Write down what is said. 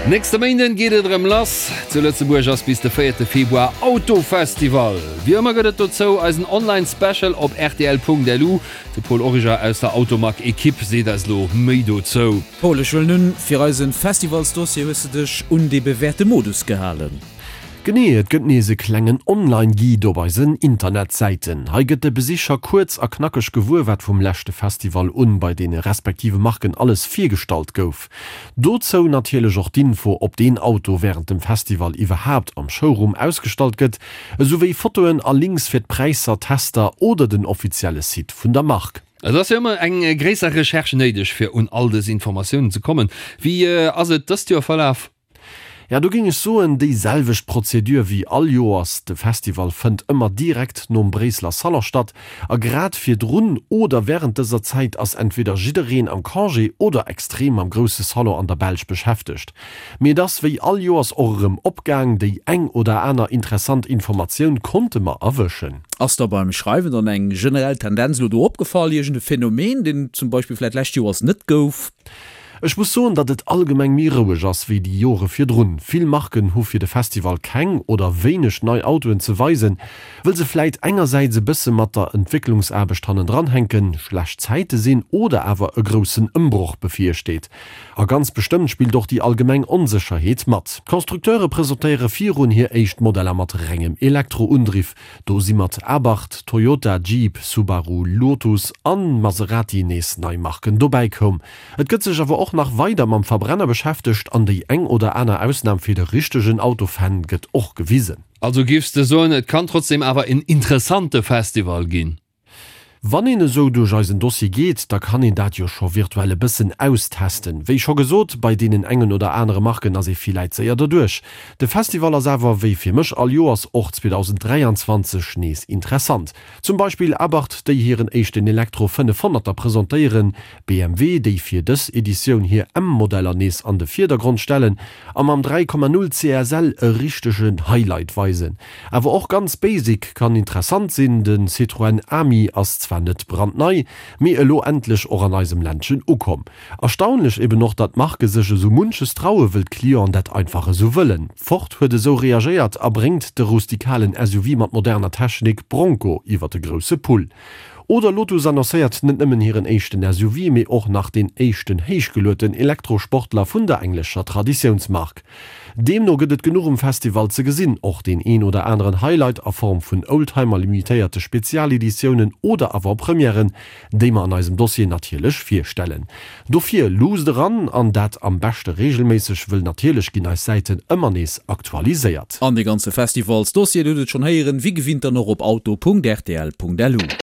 Nächste Méinden geet et erëm lass. Zu Lëtzebuerg ass bis de véierte Februar Autofestival. Wéi ëmmer gëtt et dozou eisen Online Special op rtl.lu. De Paul Origer aus der Automag Ekipp seet eis elo méi dozou. Paul, ech huelen un, fir eisen Festivalsdossier hues de dech un dee bewährte Modus gehalen. Genee, et gëtt nees e klengen Online-Guide op eisen Internetsäiten. Hei gëtt de Besicher kuerz a knackeg gewuer, wat vum leschte Festival un bei deene respektive Marken alles virgestallt gouf. Dozou natierlech och d'Info, ob deen Auto wärend dem Festival iwwerhaapt am Showroom ausgestallt gëtt, esou wéi Fotoen a Links fir d'Präisser, Tester oder den offizielle Site vun der Mark. Et ass jo ëmmer eng gréisser Recherche néideg, fir un all dës Informatiounen ze kommen. Wéi ass et dëst Joer verlaf? Ja, do géing ech soen, déi selwecht Prozedur wéi all Joers. De Festival fënnt ëmmer direkt nom Bréisseler Salon statt a grad virdrun oder wärend dëser Zäit ass entweder jiddereen am Congé oder extrem mam grousse Salon an der Belsch beschäftegt. Mee et ass wéi all Joers och erëm opgaang, déi eng oder aner interessant Informatioun konnte mer erwëschen. Ass der beim Schreiwen dann eng generell Tendenz elo do opgefall, iergend e Phänomen, deen et zum Beispill vläit lescht Joers net gouf? Ech muss soen, datt et allgemeng méi roueg ass wéi déi Jore virdrun. Vill Marken hu fir de Festival keng oder wéineg nei Autoen ze weisen, wëll se vläit engersäits e bësse mat der Entwécklungsaarbecht hannendran hänken, schlecht Zäite sinn oder awer e groussen Ëmbroch bevirsteet. A ganz bestëmmt spillt och déi allgemeng Onsécherheet mat. D'Constructeure presentéiere virun hir éischt Modeller mat rengem Elektroundriff. Do si mat Abarth, Toyota, Jeep, Subaru, Lotus an Maserati nees nei Marken dobäi koum. Et gëtt sech awer och nach weider mam Verbrenner beschäftegt an déi eng oder aner Ausnam fir de richtegen Autofan gëtt och gewisen. Also giffs de soen et kann trotzdem awer en interessante Festival ginn? Wann een esou duerch eisen Dossier geet, da kann een dat jo scho virtuell e bëssen austesten. Wéi scho gesot, bei deenen engen oder anere Marken ass ee villäit séier derduerch. De Festival ass awer, wéi fir mech all Joers, och 2023 nees interessant. Zum Beispill Abarth, déi hiren éischten Elektro 500er presentéieren, BMW, déi fir dës Editioun hir M-Modeller nees an de Virdergrond stellen a mam 3,0 CSL e richtegen Highlight weisen. Awer och ganz basic kann interessant sinn, de Citroën Ami ass zwar net brandnei, mee elo endlech och an eisem Ländchen ukomm. Erstaunlech eben och, datt d'Marke sech esou munches traue wëll d'Clienten dat einfach esou wëllen. Ford huet esou reagéiert a bréngt de rustikalen SUV mat moderner Technik Bronco iwwer de grousse Pull. Oder Lotus annoncéiert net nëmmen hiren éischten SUV, mee och nach deen éischten héichgelueten Elektrosportler vun der englescher Traditiounsmark. Deemno gëtt et genuch um Festival ze gesinn, och deen een oder aneren Highlight a Form vun Oldtimer, limitéierte Spezialeditiounen oder Avant-Premièren, déi mer an eisem Dossier natierlech virstellen. Dofir luusst eran, an dat am beschte reegelméisseg, wëll natierlech ginn eis Säiten ëmmer nees aktualiséiert. An dee ganze Festivalsdossier, dir hutt et schonn héieren, wéi gewinnt dann och op auto.rtl.lu.